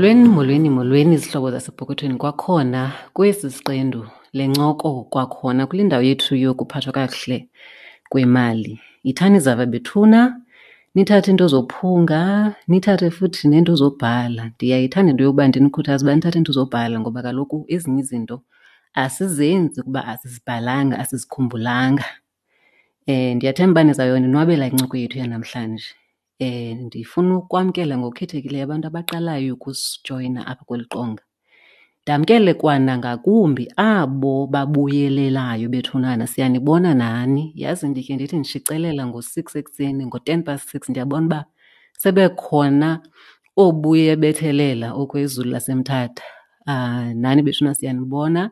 Molweni, molweni, molweni zihlobo zasepokothweni kwakhona kwesi siqendu le ncoko kwakhona kule ndawo yethu yokuphathwa kakuhle kwemali. Yithani zava bethuna, nithathe iinto zophunga, nithathe futhi neento zobhala. Ndiyayithanda into yokuba ndinikhuthaze uba nithathe iinto zobhala ngoba kaloku ezinye izinto asizenzi kuba asizibhalanga, asizikhumbulanga. Ndiyathemba uba nizawuyonwabela incoko yethu yanamhlanje. Ndifuna ukwamkela ngokukhethekileyo abantu abaqalayo ukusijoyina apha kweli qonga. Ndamkele kwanangakumbi abo babuyelelayo bethunana, siyanibona nani. Yazi ndikhe ndithi ndishicelela ngo-6 ekuseni, ngo-ten past six, ndiyabona uba sebekhona oobuye bethelela okwezulu laseMthatha. Nani bethuna siyanibona.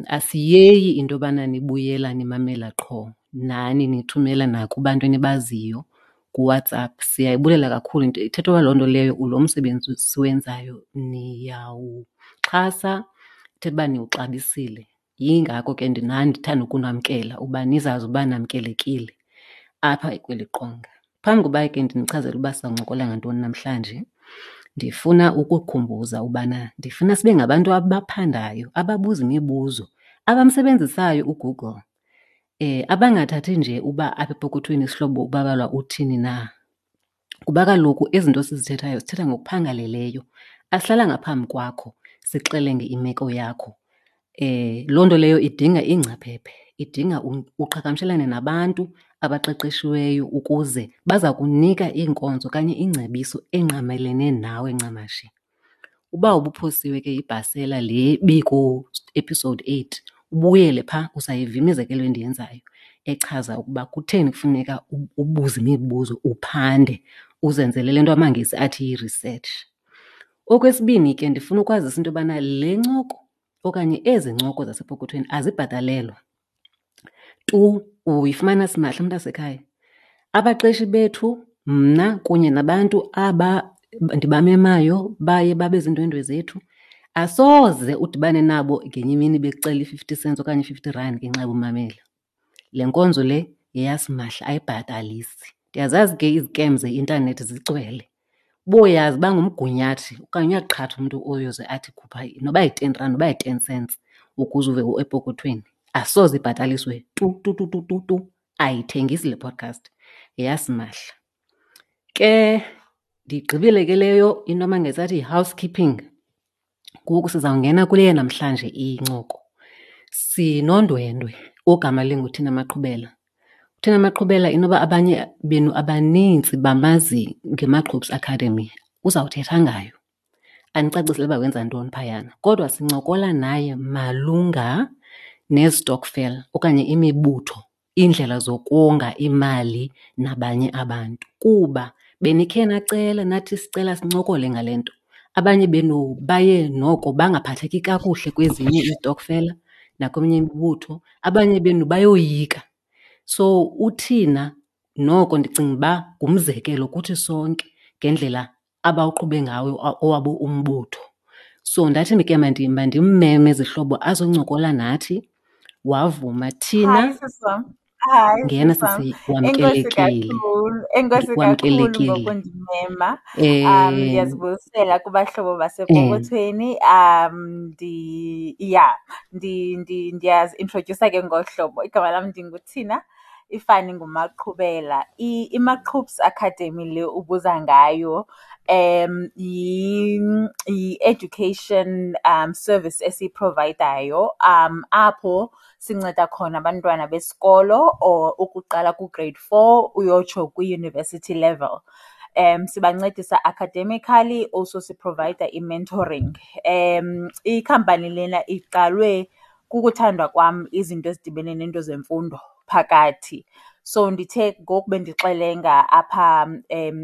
Asiyeyi into yobana nibuyela nimamela qho, nani nithumela nakubantu enibaziyo kuWhatsApp. Siyayibulela kakhulu into ithetha uba loo nto leyo lo msebenzi siwenzayo niyawuxhasa, ithetha uba niwuxabisile. Yingako ke nani ndithanda ukunamkela uba nizazi uba namkelekile apha kweli qonga. Phambi koba ke ndinichazele uba sizawuncokola ngantoni namhlanje, ndifuna ukukhumbuza ubana ndifuna sibe ngabantu abaphandayo, ababuza imibuzo, abamsebenzisayo uGoogle, abangathathi nje uba apha epokothweni isihlobo uBabalwa uthini na. Kuba kaloku izinto sizithethayo sithetha ngokuphangaleleyo. Asihlalanga phambi kwakho sixelenge imeko yakho. Loo nto leyo idinga iingcaphephe, idinga uqhagamshelane nabantu abaqeqeshiweyo ukuze baza kunika iinkonzo okanye ingcebiso engqamelene nawe ncamashi. Uba ubuphosiwe ke yibhasela le biku-episode 8, ubuyele phaa uzayiva imizekelo endiyenzayo echaza ukuba kutheni kufuneka ubuze imibuzo, uphande, uzenzele le nto amaNgesi athi yi-research. Okwesibini ke ndifuna ukwazisa into yobana le ncoko okanye ezi ncoko zasepokothweni azibhatalelwa tu, uyifumana simahla mntasekhaya. Abaqeshi bethu, mna kunye nabantu aba ndibamemayo baye babe ziindwendwe zethu, asoze udibane nabo ngenye imini bekucela i-50 cents okanye i-50 rand ngenxa yobumamela. Le nkonzo le yeyasimahla, ayibhatalisi. Ndiyazazi ke izikem zeintanethi zigcwele. Uboyazi uba ngumgunyathi okanye uyaqhatha umntu oyoze athi khupha noba yi-ten rand noba yi-ten cents ukuze uve epokothweni. Asoze ibhataliswe tu tu tu tu tu tu. Ayithengisi le podcast, yeyasimahla. Ke ndigqibile ke leyo into amaNgesi athi yi-housekeeping. Ngoku sizawungena kule yanamhlanje incoko. Sinondwendwe ogama linguThina Maqhubela. UThina Maqhubela inoba abanye benu abanintsi bamazi ngeMaqhubs Academy, uzawuthetha ngayo andicacisele uba wenza ntoni phayana. Kodwa sincokola naye malunga nezitokfela okanye imibutho, iindlela zokonga imali nabanye abantu. Kuba benikhe nacela nathi sicela sincokole ngale nto. Abanye benu baye noko bangaphatheki kakuhle kwezinye izitokfela nakweminye imibutho, abanye benu bayoyika. So uThina noko ndicinga uba ngumzekelo kuthi sonke ngendlela abawuqhube ngawo owabo umbutho. So ndathi ke mandimmeme zihlobo azoncokola nathi, wavuma. Thina Hi, sisi wam. Hi, ngena sisi wam. sisi, Enkosi wamkelekile. kakhulu. Enkosi kakhulu Wamkelekile. ngokundimema. Ndiyazibulisela kubahlobo basepokothweni. Ndiyazi-introduce ke ngohlobo. Igama lam ndinguThina, ifani nguMaqhubela. IMaqhubs Academy le ubuza ngayo, yi-education service esiyiprovayidayo, apho sinceda khona abantwana besikolo or ukuqala ku-grade 4 uyotsho kwi-university level. Sibancedisa academically, also siprovayida i-mentoring. Ikhampani lena iqalwe kukuthandwa kwam izinto ezidibene neento zemfundo phakathi. So ndithe ngoku bendixelenga apha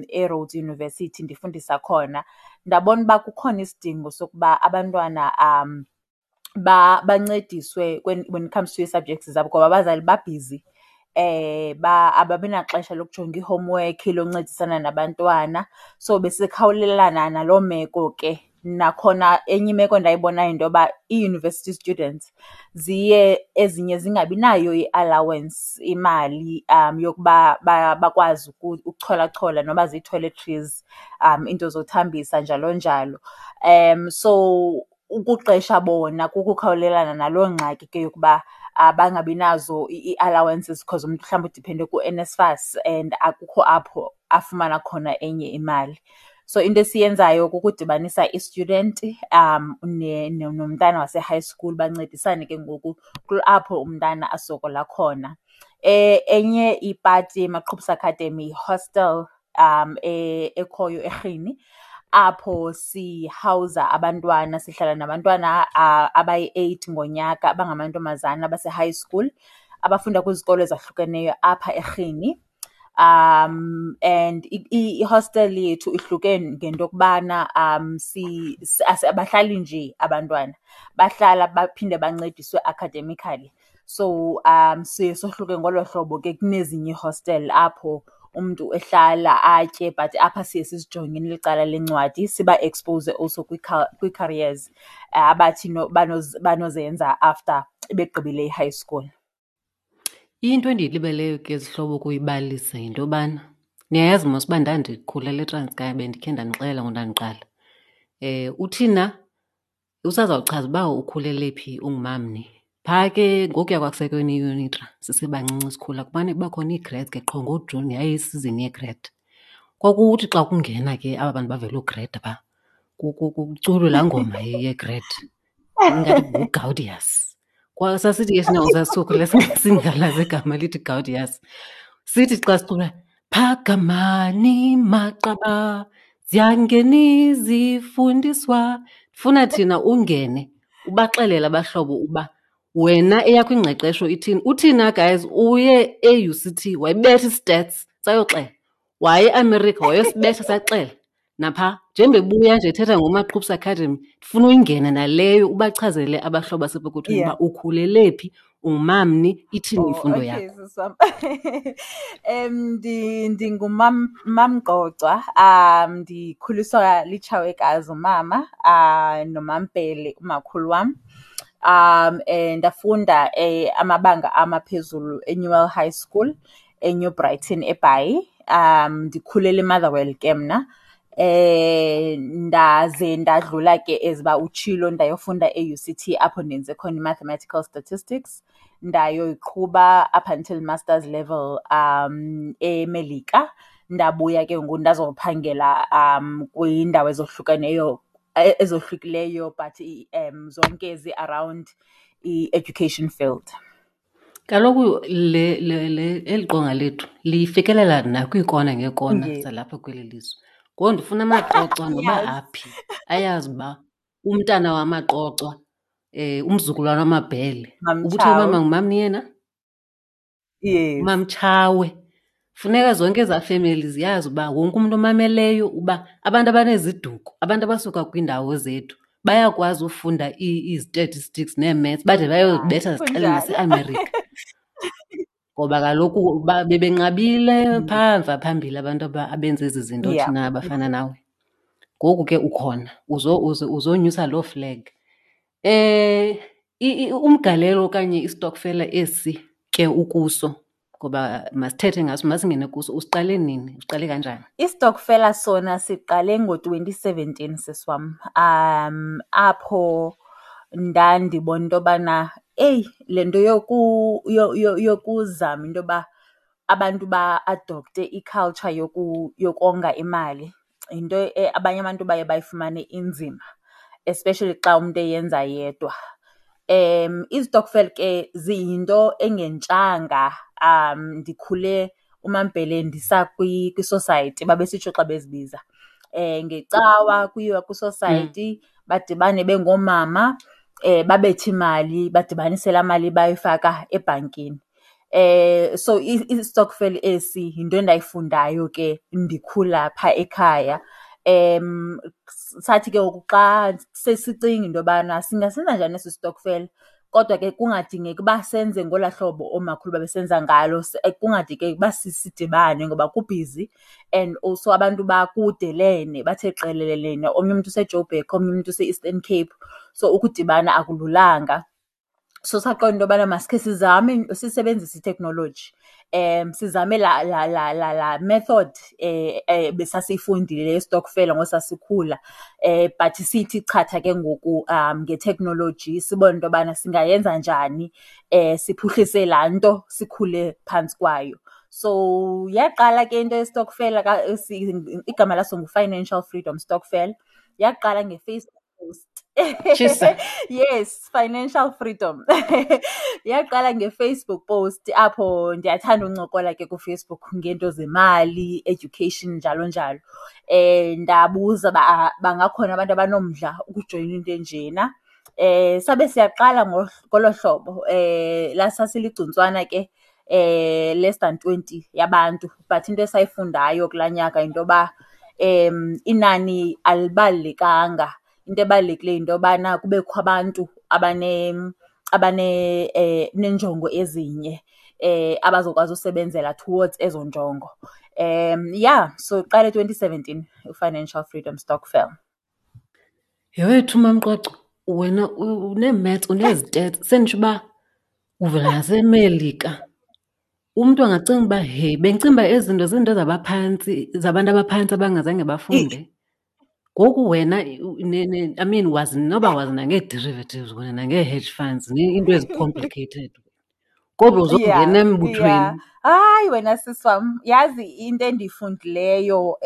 eRhodes University ndifundisa khona, ndabona uba kukhona isidingo sokuba abantwana bancediswe when it comes to ii-subjects zabo ngoba abazali babhizi. Ababi naxesha lokujonga i-homework, loncedisana nabantwana. So besikhawulelana naloo meko ke. Nakhona enye imeko endayibonayo yinto yoba ii-university students ziye ezinye zingabi nayo i-allowance, imali yokuba bakwazi ukucholachola noba zii-toiletries, iinto zothambisa njalo njalo. So ukuqesha bona kukukhawulelana naloo ngxaki ke yokuba bangabi nazo ii-allowances because umntu mhlawumbi udiphende kuNSFAS and akukho apho afumana khona enye imali. So into esiyenzayo kukudibanisa i-student nomntana wase-high school bancedisane ke ngoku apho umntana asokola khona. Enye ipati yeMaqhubisa Academy yi-hostel ekhoyo eRhini apho sihawuza abantwana, sihlala nabantwana abayi-eight ngonyaka abangamantombazana abase-high school abafunda kwizikolo ezahlukeneyo apha eRhini. And i-hostel yethu ihluke ngento yokubana abahlali nje abantwana, bahlala baphinde bancediswe academically. So siye sohluke ngolo hlobo ke kunezinye iihostele apho umntu ehlala atye, but apha siye sizijonge licala lencwadi siba-expose also kwii-careers abathi banozenza after begqibile i-high school. Into endiyilibeleyo ke zihlobo ukuyibalisa yinto yobana niyayazi mos uba ndandikhulela eTranskei, bendikhe ndanixelela ngondandiqala. UThina usazawuchaza uba ukhulele phi, ungumamni. Phaa ke ngokuya kwakusekweni iUnitra sisebancinci sikhula kumane kuba khona ii-grades ke qho ngoJuni, yayiyisizini yegrade. Kwakuthi xa kungena ke aba bantu bavela ugreda phaa kuculwe laa ngoma yegrade ingathi nguGaudius. Sasithi ke thina sasisokhula singalazi igama lithi Gaudius. Sithi xa sicula phakamani maqaba ziyangena izifundiswa. Funa thina ungene ubaxelele abahlobo uba wena eyakho ingqeqesho ithini. Uthina guys uye e-U_C_T wayibetha i-stats sayoxela, waye eAmerica wayosibetha saxela. Napha njengoba ebuya nje ethetha ngoMaqhubisa Academy, ndifuna uyingene naleyo ubachazele abahlobo basepokothweni uba ukhulele phi, ungumamni, ithini imfundo yakho. Sisi wam. NdinguMamGqogcwa, ndikhuliswa litshawekazi umama, noMaMbhele umakhulu wam. Ndafunda amabanga amaphezulu eNewell High School eNew Brighton eBhayi. Ndikhulele eMotherwell ke mna. Ndaze ndadlula ke as uba utshilo ndayofunda e-U_C_T apho ndenze khona i-mathematical statistics, ndayoyiqhuba up until masters level eMelika. Ndabuya ke ngoku ndazophangela kwiindawo ezohlukeneyo, ezohlukileyo but zonke zi-around i-education field. Kaloku eli qonga lethu lifikelela nakwiikona ngeekona zalapha kweli lizwe. Ngoku ndifuna amaQocwa noba aphi ayazi uba umntana wamaQocwa, umzukulwana wamaBhele. Ubuthe umama ngumamni yena? Yes. Mamtshawe. Funeka zonke ezaa femeli ziyazi uba wonke umntu omameleyo uba abantu abaneziduko, abantu abasuka kwiindawo zethu bayakwazi ufunda ii-statistics nee-maths bade bayozibetha zixele naseAmerica. Ngoba kaloku bebenqabile phaa mva phambili abantu abenza ezi zinto thina abafana nawe. Ngoku ke ukhona, uzonyusa loo flag. Umgalelo okanye istokfela esi ke ukuso, ngoba masithethe ngaso, masingene kuso, usiqale nini? Usiqale kanjani? Istokfela sona siqale ngo-2017, sisi wam. Apho ndandibona into yobana eyi, le nto yokuzama into yoba abantu ba-adopte i-culture yokonga imali yinto abanye abantu baye bayifumane inzima, especially xa umntu eyenza yedwa. Izitokfela ke ziyinto engentshanga. Ndikhule uMaMbhele ndisa kwisosayiti, babesitsho xa bezibiza. Ngecawa kuyiwa kwisosayiti, badibane bengoomama, babethe imali, badibanise laa mali bayifaka ebhankini. So istokfela esi yinto endayifundayo ke ndikhula phaa ekhaya. Sathi ke ngoku xa sesicinga into yobana singasenza njani esi stokfela, Kodwa ke kungadingeki uba senze ngolaa hlobo oomakhulu babesenza ngalo, kungadingeki uba sidibane ngoba kubhizi and also abantu bakudelene, bathe qelelelene. Omnye umntu useJoburg, omnye umntu use-Eastern Cape, so ukudibana akululanga. So saqonda into yobana masikhe sizame sisebenzise iteknoloji, sizame laa laa laa laa laa method besasiyifundile yestokfela ngoku sasikhula but siyithi chatha ke ngoku ngeteknoloji sibone into yobana singayenza njani siphuhlise laa nto sikhule phantsi kwayo. So yaqala ke into yestokfela, igama laso nguFinancial Freedom Stokvel. Yaqala ngeFacebook post. Tshisa. Yes, financial freedom. Yaqala ngeFacebook post apho ndiyathanda uncokola ke kuFacebook ngeento zemali, education njalo njalo. Ndabuza uba bangakhona abantu abanomdla ukujoyina into enjena. Sabe siyaqala ngolo hlobo. Sasiligcuntswana ke less than 20 yabantu, but into esayifundayo kulaa nyaka yinto yoba inani alibalulekanga. Into ebalulekileyo yinto yobana kubekho abantu neenjongo ezinye abazokwazi usebenzela towards ezo njongo. Yeah, so iqale 2017 iFinancial Freedom Stokvel. Yhe wethu Mamqwaqwa, wena unee-maths, unezitets, senditsho uba uvela naseMelika. Umntu angacinga uba hey, bendicinga uba ezi zinto ziinto zabaphantsi, zabantu abaphantsi abangazange bafunde. Ngoku wena I mean wazi noba wazi nangee-derivatives wena nangee-hedge funds, iinto ezi-complicated. Kodwa uzongena embuthweni. Hayi wena sisi wam, yazi into endiyifundileyo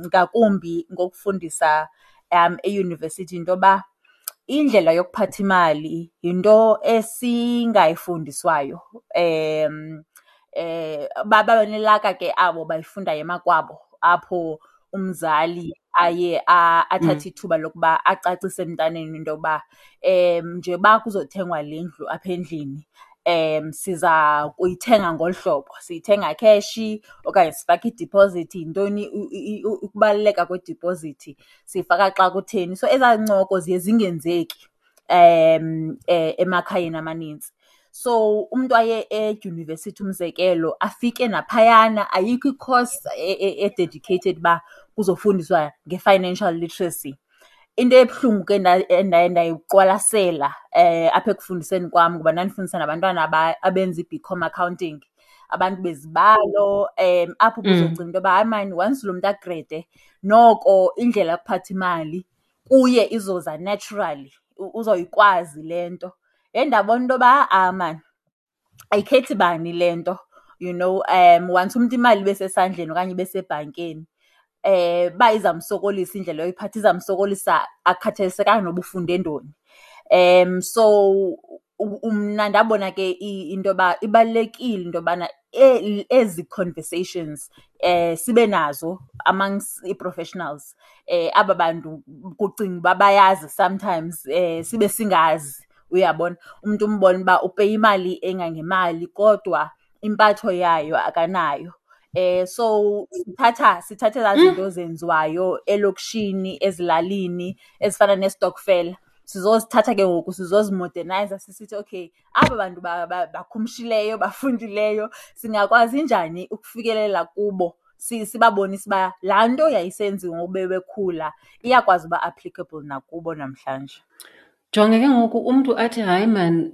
ngakumbi ngokufundisa eyunivesithi yinto yoba indlela yokuphatha imali yinto esingayifundiswayo. Babe nelaka ke abo bayifundayo emakwabo, apho umzali aye athathe ithuba lokuba acacise emntaneni into yokuba njengoba kuzothengwa le ndlu apha endlini, siza kuyithenga ngolu hlobo, siyithenga kheshi okanye sifake idiphozithi, yintoni ukubaluleka kwedipozithi, siyifaka xa kutheni. So ezaa ncoko ziye zingenzeki emakhayeni amanintsi. So umntu aye edyunivesithi umzekelo, afike naphayana ayikho i-course e-dedicated uba kuzofundiswa nge-financial literacy. Into ebuhlungu ke endaye ndayiqwalasela apha ekufundiseni kwam, ngoba ndandifundisa nabantwana abenza i-BCom accounting, abantu bezibalo, apho ubuzocinga into yoba hayi maan, once lo mntu agrede noko indlela yokuphatha imali kuye izoza naturally, uzoyikwazi le nto. Yhe ndabona into yoba ha-a maan, ayikhethi bani le nto, once umntu imali ibe sesandleni okanye ibe sebhankeni, uba izamsokolisa indlela yoyiphatha, izamsokolisa akukhathalisekanga noba ufunde ntoni. So mna ndabona ke into yoba ibalulekile into yobana ezi conversations sibe nazo amongst ii-professionals, aba bantu kucinga uba bayazi sometimes sibe singazi, uyabona. Umntu umbone uba upeya imali engangemali kodwa impatho yayo akanayo. So sithatha ezaa zinto zenziwayo elokishini, ezilalini, ezifana nestokfela. Sizozithatha ke ngoku sizozimodernayiza sisithi okay, aba bantu bakhumshileyo, bafundileyo, singakwazi njani ukufikelela kubo, sibabonise uba laa nto yayisenziwa ngoku bebekhula iyakwazi uba applicable nakubo namhlanje. Jonga ke ngoku umntu athi hayi maan,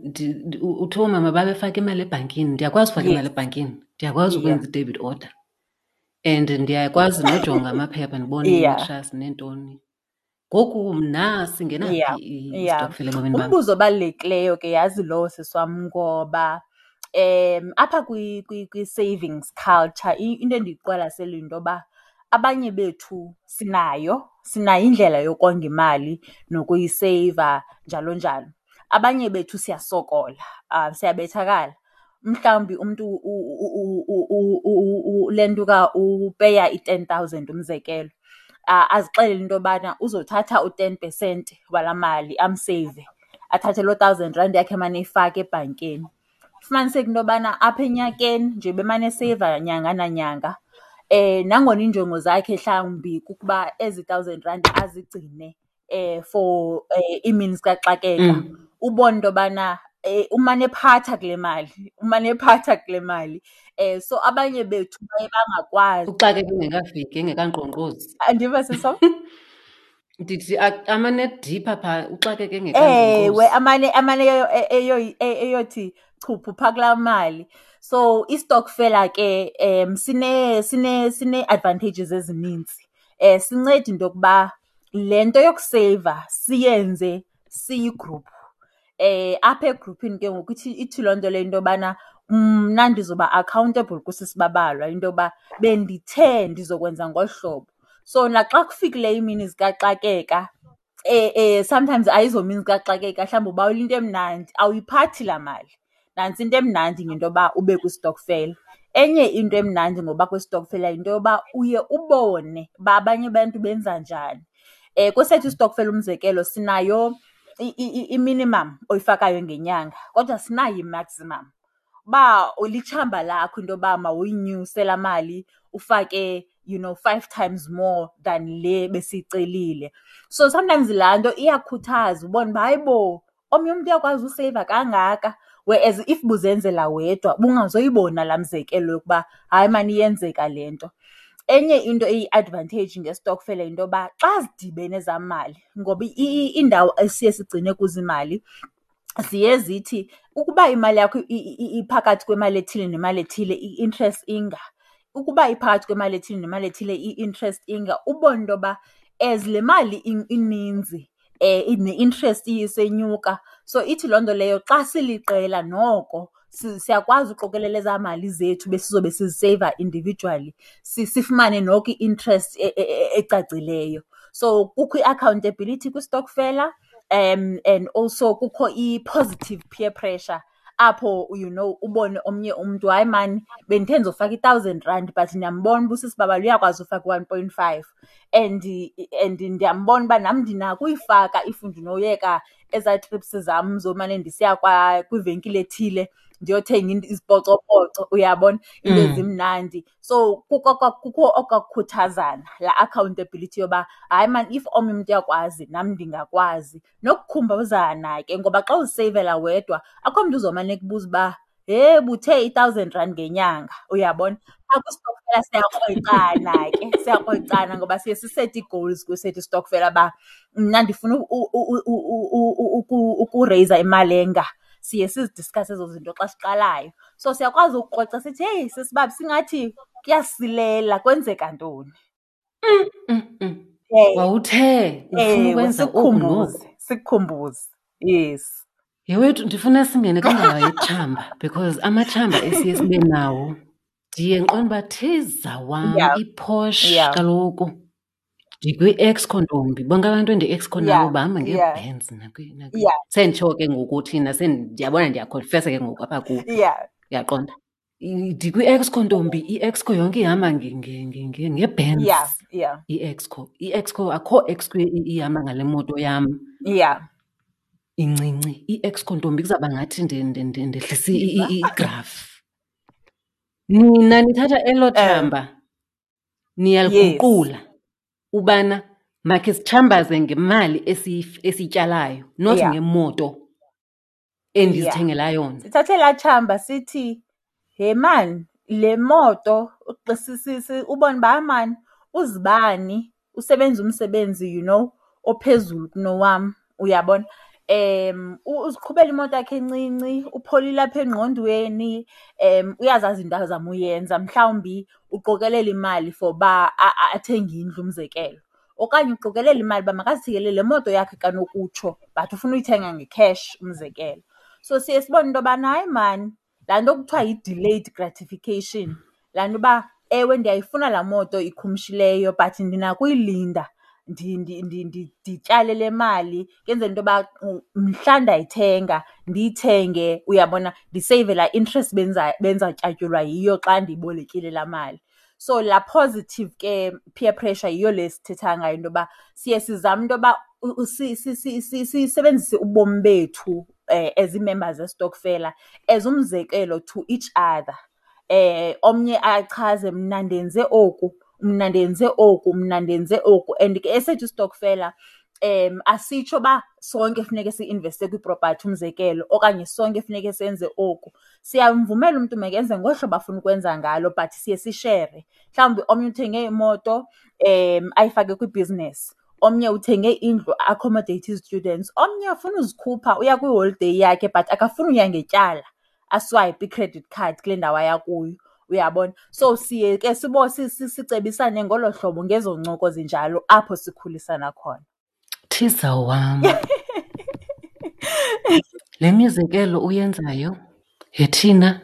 uthe oomama babefaka imali ebhankini, ndiyakwazi ufaka imali ebhankini, ndiyakwazi ukwenza i-debit order and ndiyakwazi nojonga amaphepha ndibone i-interest neentoni. Ngoku mna singena phi istokfela ebomini bam? Umbuzo obalulekileyo ke yazi lowo sisi wam, ngoba apha kwi-savings culture into endiyiqwalasele yinto yoba abanye bethu sinayo indlela yokonga imali nokuyiseyiva njalo njalo. Abanye bethu siyasokola, siyabethakala. Mhlawumbi umntu lentuka upeya i-10,000 umzekelo, azixelele into yobana uzothatha u-10% walaa mali amseyive, athathe loo thousand rand yakhe emane eyifaka ebhankeni. Fumaniseke into yobana apha enyakeni nje bemane eseyiva nyanga nanyanga, nangona iinjongo zakhe mhlawumbi kukuba ezi thousand rand azigcine for iimini zikaxakeka. Ubone into yobana umane ephatha kule mali, umane ephatha kule mali. So abanye bethu baye bangakwazi. Uxakeka engekafiki, engekankqonkqozi. Andiva, sisi wam? Ndithi amane edipha phaa, uxakeke engekankqonkqozi. Ewe, amane eyothi chuphu phaa kulaa mali. So istokfela ke sinee-advantages ezinintsi. Sinceda into yokuba le nto yokuseyiva siyenze siyigruphu. Apha egruphini ke ngoku ithi loo nto leyo into yobana mna ndizoba accountable kusisi Babalwa into yoba bendithe ndizokwenza ngolu hlobo. So naxa kufikileyo iimini zikaxakeka, sometimes ayizomini zikaxakeka, mhlawumbi ubawela into emnandi, awuyiphathi laa mali. Nantsi into emnandi ngento yoba ube kwistokfela. Enye into emnandi ngoba kwistokfela yinto yoba uye ubone uba abanye abantu benza njani. Kwesethu istokfela umzekelo sinayo i-minimum oyifakayo ngenyanga kodwa asinayo i-maximum. Uba litshamba lakho into yoba mawuyinyuse laa mali ufake 5 times more than le besiyicelile. So sometimes laa nto iyakhuthaza ubone uba hayibo omnye umntu uyakwazi useyiva kangaka, whereas if buzenzela wedwa ubungazoyibona laa mzekelo yokuba hayi maan iyenzeka le nto. Enye into eyi-advantage ngestokfela yinto yoba xa zidibene ezaa mali, ngoba iindawo esiye sigcine kuzo imali ziye zithi ukuba imali yakho iphakathi kwemali ethile nemali ethile i-interest inga, ukuba iphakathi kwemali ethile nemali ethile i-interest inga, ubone into yoba as le mali ininzi ne-interest isenyuka. So ithi loo nto leyo xa siliqela noko siyakwazi uqokelela ezaa mali zethu besizobe siziseyiva individually, sifumane noko i-interest ecacileyo. So kukho i-accountability kwistokfela, and also kukho i-positive peer pressure apho ubone omnye umntu, hayi maan bendithe ndizofaka i-thousand rand but ndiyambona uba usisi Babalwa uyakwazi ufaka i-1.5 and ndiyambona uba nam ndinako uyifaka if ndinoyeka ezaa trips zam zomane ndisiya kwivenkile ethile ndiyothenga izipocopoco, uyabona, into ezimnandi. So kukho okakukhuthazana, laa accountability yoba hayi maan if omnye umntu uyakwazi nam ndingakwazi. Nokukhumbuzana ke ngoba xa uziseyivela wedwa akho mntu uzomane ekubuza uba hhe buthe i-thousand rand ngenyanga, uyabona. Phaa kwistokfela siyakrwecana ke, siyakrwecana ngoba siye sisete ii-goals kwesethu istokfela uba mna ndifuna ukureyza imali enga. Siye sizidiskhase ezo zinto xa siqalayo. So siyakwazi ukukrweca sithi heyi sisi Bab singathi kuyasilela, kwenzeka ntoni? Wawuthe ufuna ukwenza oku noku. Sikukhumbuze, yes. Yewethu, ndifuna singene kwindaba yetshamba because amatshamba esiye sibe nawo ndiye ndiqonde uba thiza wam iPorsche kaloku. Ndikwi-Exco ntombi, bonke abantu endi-Exco nabo bahamba ngeeBenz Senditsho ke ngoku thina, ndiyabona ndiyakhonfesa ke ngoku apha kuwe. Uyaqonda? Ndikwi-Exco ntombi, i-Exco yonke ihamba ngeBenz. I-Exco. I-Exco, akho Exco ihamba ngale moto yam. Incinci. I-Exco ntombi kuzawuba ngathi ndehlisa igraph. Nina nithatha elo tshamba, niyaliguqula ubana makhe sitshambaze ngemali esiyityalayo, not ngemoto endizithengela yona. Sithathe laa tshamba sithi, he maan, le moto, ubone uba maan uzibani usebenza umsebenzi ophezulu kunowam, uyabona. Uziqhubela imoto yakhe encinci, upholile apha engqondweni, uyazazi into azama uyenza, mhlawumbi uqokelela imali for uba athenge indlu umzekelo. Okanye uqokelela imali uba makazithengele le moto yakhe kanokutsho but ufuna uyithenga nge-cash umzekelo. So siye sibone into yobana hayi maan, laa nto kuthiwa yi-delayed gratification, laa nto uba ewe ndiyayifuna laa moto ikhumshileyo but ndinako uyilinda ndityale le mali kwenzela into yoba mhla ndayithenga ndiyithenge, uyabona, ndiseyive laa interest bendizawutyatyulwa yiyo xa ndiyibolekile laa mali. So laa positive ke peer pressure yiyo le sithetha ngayo into yoba siye sizame into yoba sisebenzise ubomi bethu as ii-members zestokfela as umzekelo to each other. Omnye achaze mna ndenze oku, mna ndenze oku, mna ndenze oku. And ke esethu istokfela Asitsho uba sonke funeke si-investe kwipropathi, umzekelo, okanye sonke funeke senze oku. Siyamvumela umntu makenze ngolu hlobo afuna ukwenza ngalo but siye sishere. Mhlawumbi omnye uthenge imoto ayifake kwibhizinesi, omnye uthenge indlu a-accommodate ii-students, omnye ufuna uzikhupha uya kwiholideyi yakhe but akafuni uya ngetyala aswayipe i-credit card kule ndawo aya kuyo, uyabona. So siye ke sicebisane ngolo hlobo ngezo ncoko zinjalo apho sikhulisana khona. Thiza wam, le mizekelo uyenzayo yethina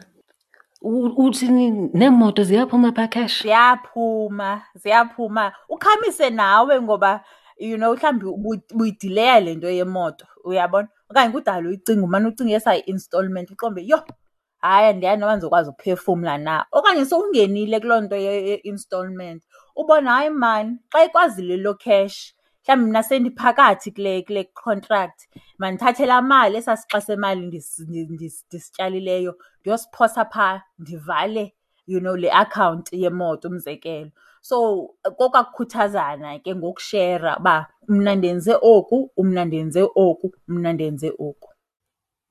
uthini neemoto ziyaphuma phaa cash? Ziyaphuma, ziyaphuma. Ukhamise nawe ngoba you know mhlawumbi ubuyidileya le nto yemoto, uyabona? Okanye kudala uyicinga, umane ucinga esaa i-installment uqonde uba yho, hayi andiyazi noba ndizokwazi ukuphefumla na. Okanye sowungenile kuloo nto ye-installment ubone hayi maan xa ikwazile loo cash, mhlawumbi mna sendiphakathi kule contract, mandithathe laa mali, esaa sixa semali ndisityalileyo ndiyosiphosa phaa ndivale you know le akhawunti yemoto, umzekelo. So kokwaa kukhuthazana ke ngokushera uba mna ndenze oku, mna ndenze oku, mna ndenze oku.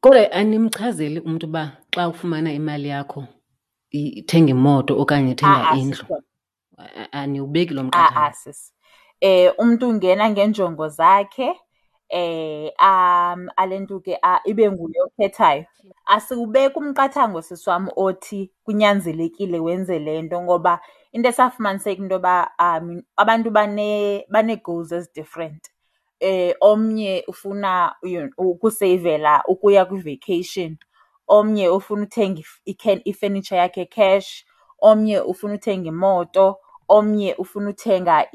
Kodwa animchazeli umntu uba xa ufumana imali yakho thenga imoto okanye thenga A-a, indlu? sisi wam. Aniwubeki lo A-a, mqathango? sisi. Umntu ungena ngeenjongo zakhe, alentuke ibe nguye okhethayo. Asiwubeki umqathango, sisi wam, othi kunyanzelekile wenze le nto ngoba into esafumaniseka into yoba abantu banee-goals ezi-different. Omnye ufuna ukuseyivela ukuya kwi-vacation, omnye ufuna uthenga ifenitsha yakhe cash, omnye ufuna uthenga imoto, omnye ufuna uthenga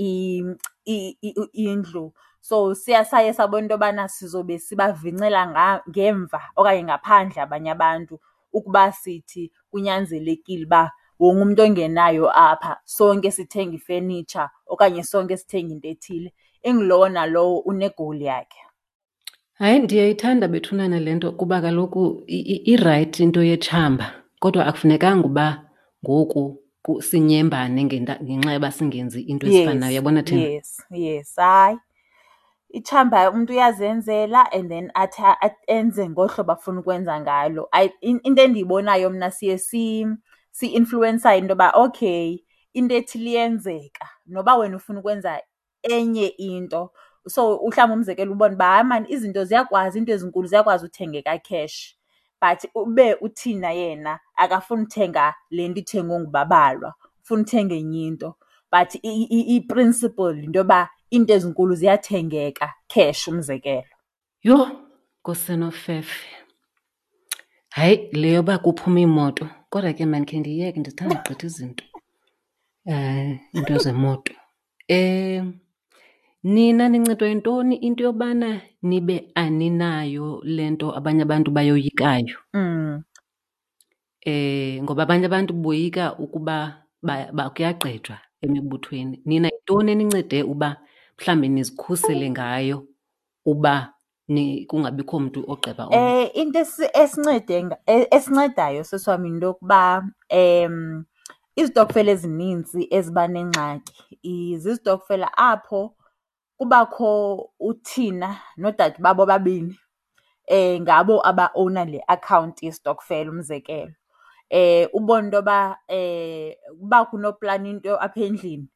indlu. So siya saye sabona into yobana sizobe sibavincela ngemva okanye ngaphandle abanye abantu ukuba sithi kunyanzelekile uba wonke umntu ongenayo apha sonke sithenga ifenitsha okanye sonke sithenga into ethile. Ingulowo nalowo une-goal yakhe. Hayi, ndiyayithanda bethunana le nto kuba kaloku irayithi into yetshamba, kodwa akufunekanga uba ngoku sinyembane ngenxa yoba singenzi into ezifanayo. Uyabona thina? Yes, yes. Hayi, itshamba umntu uyazenzela and then athi enze ngohlobo afuna ukwenza ngalo. Into endiyibonayo mna siye si-influwensayo into yoba okay, into ethile iyenzeka noba wena ufuna ukwenza enye into. So mhlawumbi umzekelo ubone uba hayi maan izinto ziyakwazi, iinto ezinkulu ziyakwazi uthengeka cash but ube uThina yena akafuni uthenga le nto ithengwe nguBabalwa, ufuna uthenga enye into. But i-principle yinto yoba iinto ezinkulu ziyathengeka cash, umzekelo. Yho, Nkosi enofefe. Hayi, le yoba kuphuma iimoto, kodwa ke mandikhe ndiyeke, ndithanda gqitha izinto, iinto zemoto. Nina nincedwa yintoni into yobana nibe aninayo le nto abanye abantu bayoyikayo? Ngoba abanye abantu boyika ukuba kuyagqejwa emibuthweni. Nina yintoni enincede uba mhlawumbi nizikhusele ngayo uba kungabikho mntu ogqeba omnye? Into esincedayo sisi wam yinto yokuba izitokfela ezinintsi eziba nengxaki zizitokfela apho kubakho uThina noodade babo ababini, ngabo abaowuna le akhawunti yesitokfela, umzekelo. Ubone into yoba uba kunoplana into apha endlini,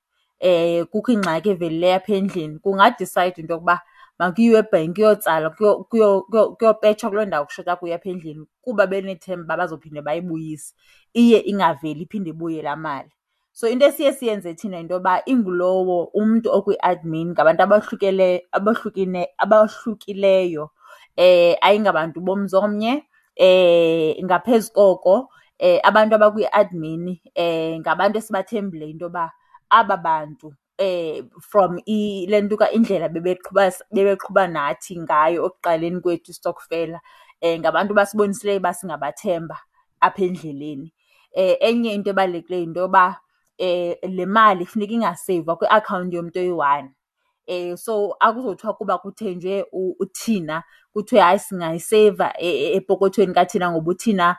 kukho ingxaki evelileyo apha endlini, kungadisayidwa into yokuba makuyiwe ebhenki kuyotsalwa, kuyopetshwa kuloo ndawo kushota kuyo apha endlini kuba benethemba uba bazophinde bayibuyise. Iye ingaveli iphinde ibuye laa mali. So into esiye siyenze thina yinto yoba ingulowo umntu okwi-admin ngabantu abahlukileyo, ayingabantu bomzi omnye. Ngaphezu koko abantu abakwi-admin ngabantu esibathembileyo into yoba aba bantu from le nto indlela bebeqhuba nathi ngayo ekuqaleni kwethu istokfela, ngabantu abasibonisileyo uba singabathemba apha endleleni. Enye into ebalulekileyo yinto yoba le mali funeka ingaseyivwa kwiakhawunti yomntu oyi-one. So akuzothiwa kuba kuthenjwe uThina kuthiwe hayi singayiseyiva epokothweni kaThina ngoba uThina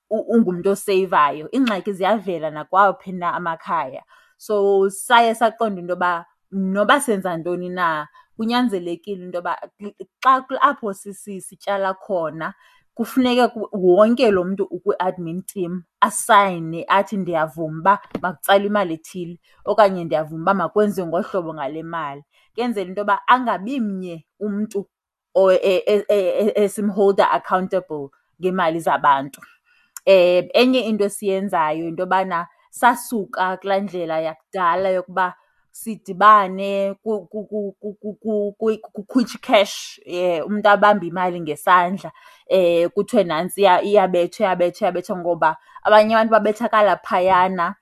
ungumntu oseyivayo. Iingxaki ziyavela nakwawaphi na amakhaya. So saye saqonda into yoba noba senza ntoni na Kunyanzelekile into yoba xa apho sityala khona kufuneke wonke lo mntu ukwi-admin team asayine athi ndiyavuma uba makutsalwe imali ethile okanye ndiyavuma uba makwenziwe ngolu hlobo ngale mali. Kuyenzela into yoba angabi mnye umntu esimholda accountable ngeemali zabantu. Enye into esiyenzayo yinto yobana sasuka kulaa ndlela yakudala yokuba sidibane kukhutshwe i-cash, umntu abambe imali ngesandla kuthiwe nantsiya iyabethwa, iyabethwa, iyabethwa ngoba abanye abantu babethakala phayana.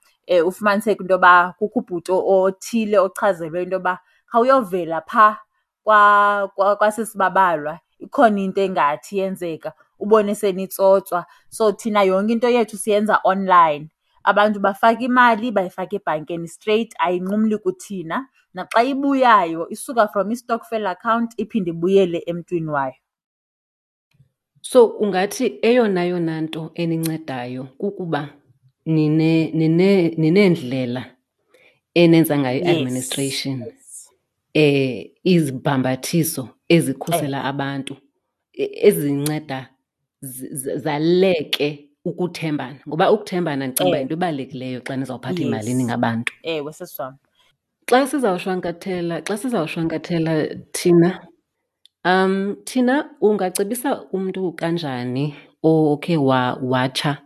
Ufumaniseke into yoba kukho ubhuti othile ochazelwe into yoba khawuyovela phaa kwaSisi Babalwa ikhona into engathi iyenzeka, ubone senitsotswa. So thina yonke into yethu siyenza online. Abantu bafaka imali, bayifaka ebhankeni straight, ayinqumli kuthina. Naxa ibuyayo isuka from istokfela account iphinde ibuyele emntwini wayo. So ungathi eyona yona nto enincedayo kukuba nineendlela enenza ngayo i-administration, izibhambathiso ezikhusela abantu, ezinceda zaleke ukuthembana. Ngoba ukuthembana ndicinga uba yinto ebalulekileyo xa nizawuphatha imali ningabantu. Ewe, sisi wam. Xa sizawushwankathela thina, thina ungacebisa umntu kanjani okhe watsha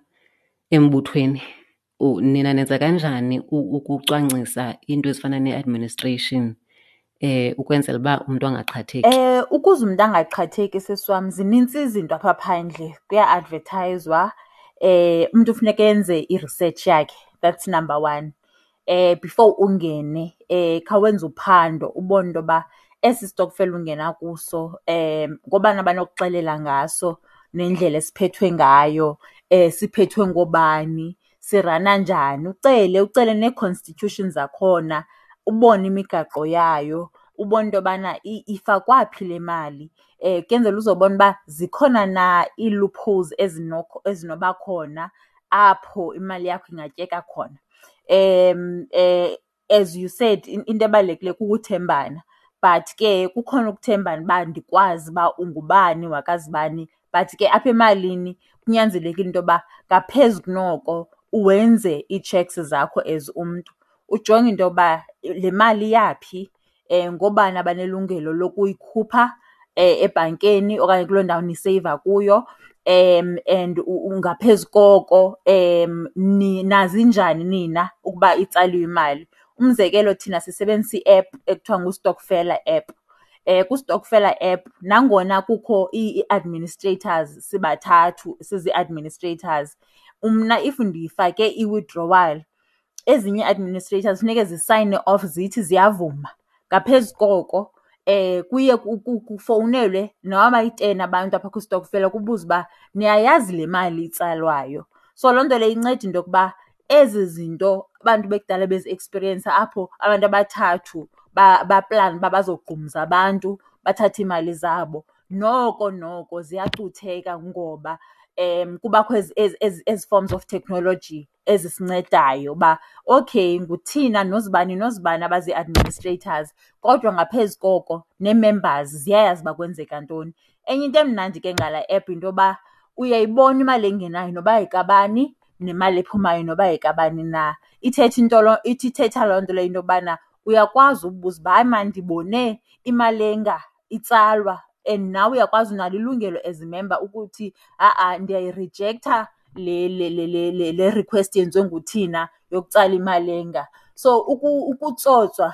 embuthweni? Nina nenza kanjani ukucwangcisa iinto ezifana ne-administration ukwenzela uba umntu angaqhatheki? Ukuze umntu angaqhatheki, sisi wam, zinintsi izinto apha phandle, kuya-advethayizwa. Umntu funeka enze i-research yakhe, that's number one. Before ungene khawenze uphando ubone into yoba esi stokfela ungena kuso ngoobani abanokuxelela ngaso nendlela esiphethwe ngayo, siphethwe ngoobani, sirana njani. Ucele, ucele nee-constitution zakhona ubone imigaqo yayo, ubone into yobana ifakwa phi le mali kuyenzela uzobona uba zikhona na ii-loopholes ezinoba khona apho imali yakho ingatyeka khona. As you said, into ebalulekileyo kukuthembana but ke kukhona ukuthembana uba ndikwazi uba ungubani wakazibani, but ke apha emalini kunyanzelekile into yoba ngaphezu kunoko wenze ii-checks zakho as umntu. Ujonge into yoba le mali iyaphi, ngoobani abanelungelo lokuyikhupha ebhankeni okanye kuloo ndawo niseyiva kuyo and ngaphezu koko nazi njani nina ukuba itsaliwe imali. Umzekelo, thina sisebenzisa i-app ekuthiwa nguStokfela app. KuStokfela app nangona kukho ii-administrators sibathathu sizi-administrators, mna if ndifake i-withdrawal ezinye ii-administrators funeke zisayine off zithi ziyavuma. Ngaphezu koko kuye kufowunelwe noba bayi-10 abantu apha kwistokfela kubuzwe uba niyayazi le mali itsalwayo. So loo nto leyo inceda into yokuba ezi zinto abantu bekudala beziekspiriyensa apho abantu abathathu baplane uba bazogqumza abantu bathathe iimali zabo, noko noko ziyacutheka ngoba kubakho ezi forms of technology ezisincedayo uba okay nguThina noZibani noZibani abazi-administrators, kodwa ngaphezu koko nee-members ziyayazi uba kwenzeka ntoni. Enye into emnandi ke ngala app yinto yoba uyayibona imali engenayo noba yekabani nemali ephumayo noba yekabani na. Ithetha into loo, ithi ithetha loo nto leyo into yobana uyakwazi ubuza uba hayi maan ndibone imali enga itsalwa and nawe uyakwazi unalo ilungelo as imemba ukuthi ha-a ndiyayirijektha le le le le le le request yenziwe nguThina yokutsala imali enga. So ukutsotswa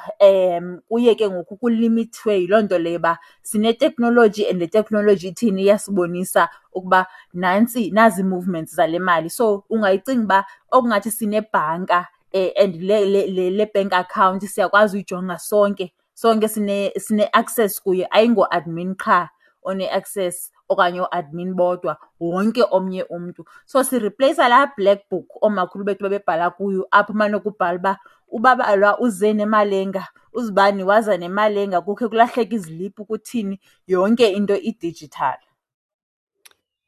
kuye ke ngoku kulimithwe yiloo nto leyo uba sineteknoloji and le teknoloji ithini iyasibonisa ukuba nantsi, nazi ii-movements zale mali. So ungayicinga uba okungathi sinebhanka and le le le le bank account siyakwazi uyijonga sonke, sonke sine-access kuyo, ayingoadmin qha one-access okanye ooadmin bodwa, wonke omnye umntu. So siripleyisa laa black book oomakhulu bethu babebhala kuyo apho umane kubhala uba uBabalwa uze nemali enga, uZibani waza nemali enga, kukhe kulahleke iziliphu kuthini, yonke into i-digital.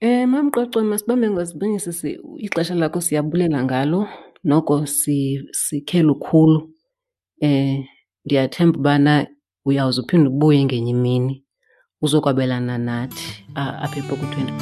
MamQoco, masibambe ngazibini sisi, ixesha lakho siyabulela ngalo, noko sikhe lukhulu. Ndiyathemba ubana Uyawuze uphinde ubuye ngenye imini uzokwabelana nathi apha epokothweni.